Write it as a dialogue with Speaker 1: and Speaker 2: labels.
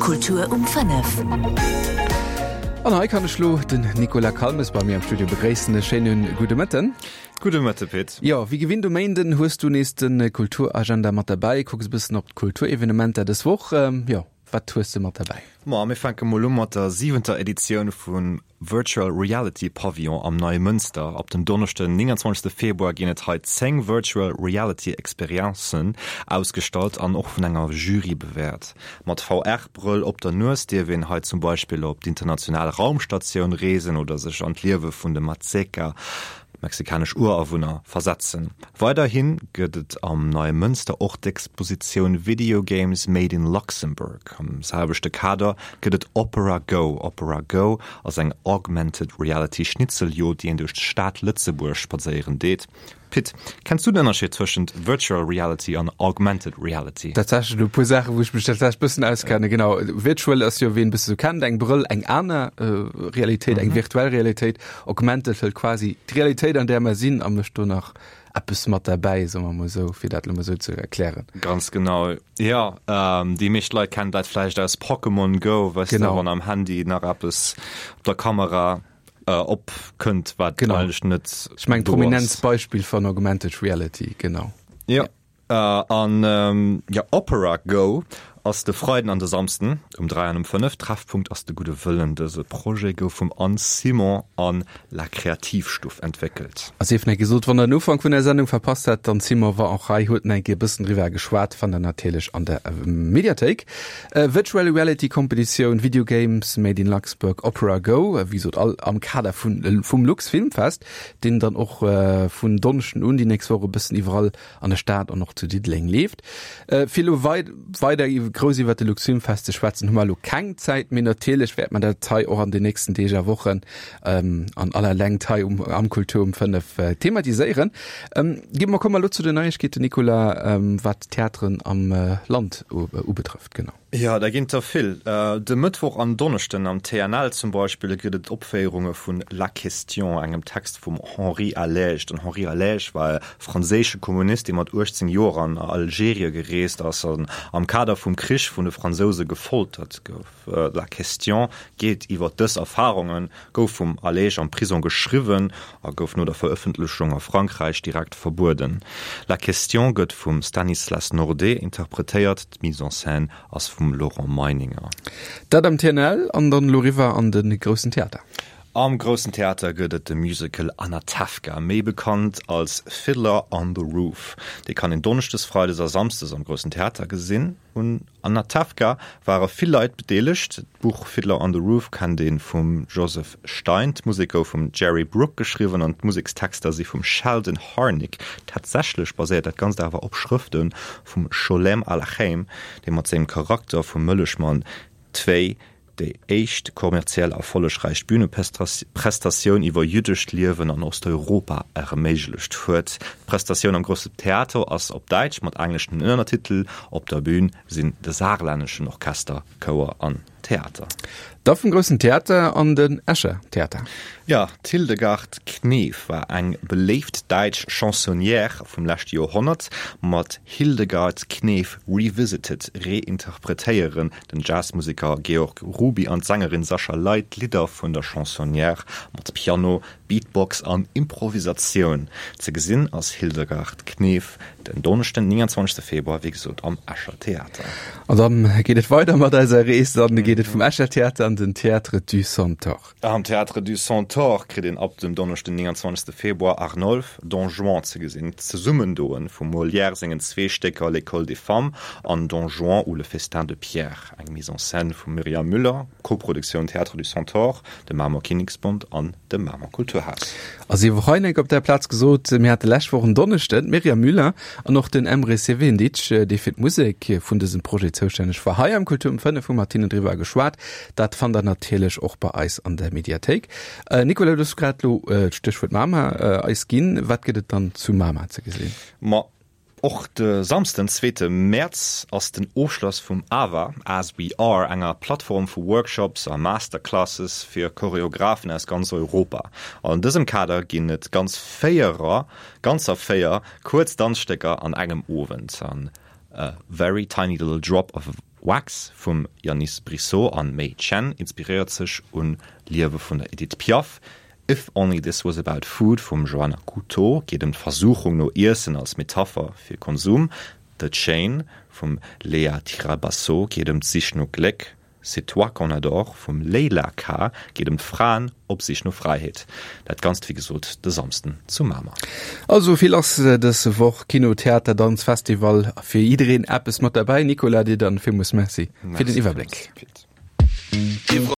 Speaker 1: Kultur um 5.
Speaker 2: An hei kann ech lo den Nicolas Calmes bei mir am Studio begréissen. E schéine gudde Mëtten.
Speaker 3: Gudde Mëtte Pit.
Speaker 2: Jo, wéi gewinnt um Méinden hues du nees de Kulturagenda mat derbäi, kucks e bëssen op d'Kulturevenementer dës Woch. Jo, wat hues de mat derbäi?
Speaker 3: Ma mir fänke mol u mat der siwenter Editioun vum Virtual Reality Pavillon am Neimënster. Ab dem Donneschden, 29 Februar ginn et hei 10 Virtual Reality Experiencen ausgestallt an och vun enger Jury bewäert. Mat VR-Brëll op der Nues dierf een hei zum Beispill op d'international Raumstatioun reesen oder sech an d'Liewe vun de Mazeca, mexikanesch Urawunner, versetzen. Weiderhi gëtt et am Neimënster och d'Expositioun Video Games Made in Luxembourg. Am selwechte Kader gëtt et Opera Go. Opera Go ass eng Augmented Reality Schnitzeljod, déi een duerch d'Stad Lëtzebuerg spadséieren deet. Pit, kenns du den Ënnerscheed tëschent Virtual Reality an Augmented Reality?
Speaker 2: Tatsächlech elo e puer Saachen, wou ech mech tatsächlech bëssen auskenne. Genau, Virtual ass jo, ween e bësse sou kennt, eng Brëll, eng aner Realitéit, eng virtuell Realitéit. Augmented hëlt quasi d'Realitéit, an där mer sinn, a mécht do nach eppes mat derbäi, soe mer mol esou, fir dat elo mol esou ze erklären.
Speaker 3: Ganz genau, jo. Déi meescht Leit kennen dat vläicht aus Pokémon Go, weess de, wann am Handy nach eppes op der Kamera opkënnt, wat eigentlech net do ass.
Speaker 2: Ech mengen, prominentst Beispill vun Augmented Reality, genau.
Speaker 3: Jo. An jo, Opera Go ass de Freiden an de Samsden um 3 an um 5. Treffpunkt ass de Gudde Wëllen. Dëse Projet gouf vum Anne Simon an La Kreativstuff entwéckelt.
Speaker 2: A sief net gesot, wann der den Ufank vun der Sendung verpasst hat, d'Anne Simon war och hei, huet nach eng Kéier e bëssen driwwer geschwat, fannt der natierlech an der Mediathéik. Virtual Reality Competitioun, Video Games Made in Luxembourg, Opera Go, wéi gesot all am Kader vun vum Luxfilmfest, deen dann och vun Donneschden un déi nächst Woch e bëssen iwwerall an der Stad an och zu Diddeleng leeft. Fir elo weider grouss iwwert de Luxfilmfest ze schwätzen, hu mer elo keng Zäit, mee natierlech wäert mer dat hei och an den nächsten Deeg a Wochen an aller Längt hei um am Kultur um 5 thematiséieren. Gi mer, komme mer elo zu den Neiegkeeten, Nicolas, wat d'Theateren am Land ubetrëfft, genau.
Speaker 3: Jo, der ginn der vill. De Mëttwoch an Donneschden am TNL zum Beispill gëtt et Opféierunge vun La Question, engem Text vum Henri Allège. Den Henri Allège war e franséische Kommunist, dee mat 18 Joer an Algerie gereest ass an am Kader vum Krich vun de Fransouse gefoltert gouf. La Question geet iwwer dës Erfarungen, gouf vum Allège am Prisong geschriwwen a gouf no der Verëffentlechung a Frankräich direkt verbueden. La Question gëtt vum Stanislas Nordet interpretéiert. D'Mise en scène ass vum Laurent Meininger.
Speaker 2: Dat am TNL an dann elo riwwer an de Groussen Theater.
Speaker 3: Am Groussen Theater gëtt et de Musical Anatevka, méi bekannt als Fiddler on the Roof. Dee kann een Donneschdes, Freides a Samsdes am Groussen Theater gesinn. Un Anatevka ware vill Leit bedeelegt. D'Buch Fiddler on the Roof kennt ee vum Joseph Stein, d'Musek gouf vum Jerry Brook geschriwwen an d'Musekstexter si vum Sheldon Harnick. Tatsächlech baséiert dat Ganzt awer op Schrëfte vum Scholem Aleichem, dee mat sengem Charakter vum Mëllechmann Tvei déi éischt kommerziell erfollegräich Büneprestatioun iwwer jüddescht Liewen an Osteuropa erméiglecht huet. D'Prestatioun am Grosse Theater ass op Däitsch mat engleschen Ënnertitel. Op der Bün sinn de Saarlänneschen Orchester, Chouer an Theater.
Speaker 2: Da vum Groussen Theater an den Escher Theater.
Speaker 3: Jo, d'Hildegard Knef war eng beléift däitsch Chansonnière vum leschte Joerhonnert. Mat Hildegard Knef Revisited reinterpretéieren den Jazzmuseker Georg Ruby an d'Sängerin Sascha Ley d'Lidder vun der Chansonnière mat Piano, Beatbox an Improvisatioun. Ze gesinn ass Hildegard Knef den Donneschden, 29 Februar, wéi gesot am Escher Theater.
Speaker 2: An dann geet et weider mat eiser Rees, dann geet et vum Escher Theater an den Théâtre du Centaure.
Speaker 3: Am Théâtre du Centaure kritt een ab dem Donneschden, 29 Februar Arnolphe, Don Juan ze gesinn. D'Zesummendoe vum Molière sengen zwee Stécker L'École des femmes an Don Juan ou le festin de Pierre, eng Mise en scène vum Myriam Müller, Koproduktioun Théâtre du Centaure, dem Mamer Kinneksbond an dem Mamer Kulturhaus.
Speaker 2: A sief och hei enk op der Plaz gesot, mir hate lescht Woch en Donneschden d'Myriam Müller an och den Emre Sevindic, dee fir d'Musek vun dësem Projet zoustänneg war, hei am Kultur um 5 hu mat hinnen driwwer geschwat. Dat fannt der natierlech och bei eis an der Mediathéik. Nicolas, du hues grad elo d'Stéchwuert Mamer eis ginn. Wat gëtt et dann zu Mamer ze gesinn?
Speaker 3: Ma Och de Samsden, zweete Mäerz, ass den Ofschloss vum AWA, As We Are, enger Plattform vu Workshops a Masterclasses fir Choreographen aus ganz Europa. An dësem Kader ginn et ganz véierer, ganzer 4 kuerz Danzstécker an engem Owend. An A Very Tiny Little Drop of. Wax vum Yannis Brissot an May Chen inspiréiert sech un Liewe vun der Edith Piaf. If Only This Was About Food vum Joanna Couto geet ëm d'Versuchung no Iessen als Metapher fir Konsum. The Chain vum Léa Tirabasso geet ëm d'Sich no Gléck. C'est toi qu'on adore vum Leila K. Geet ëm d'Fraen op Sich no Fräiheet. Dat Ganzt wéi gesot de Samsden zu Mamer.
Speaker 2: Also vill lass dës Woch, Kino, Theater, Danz, Festival, fir jiddereen eppes mat derbäi. Nicolas, dir dann villmools Merci fir den Iwwerbléck.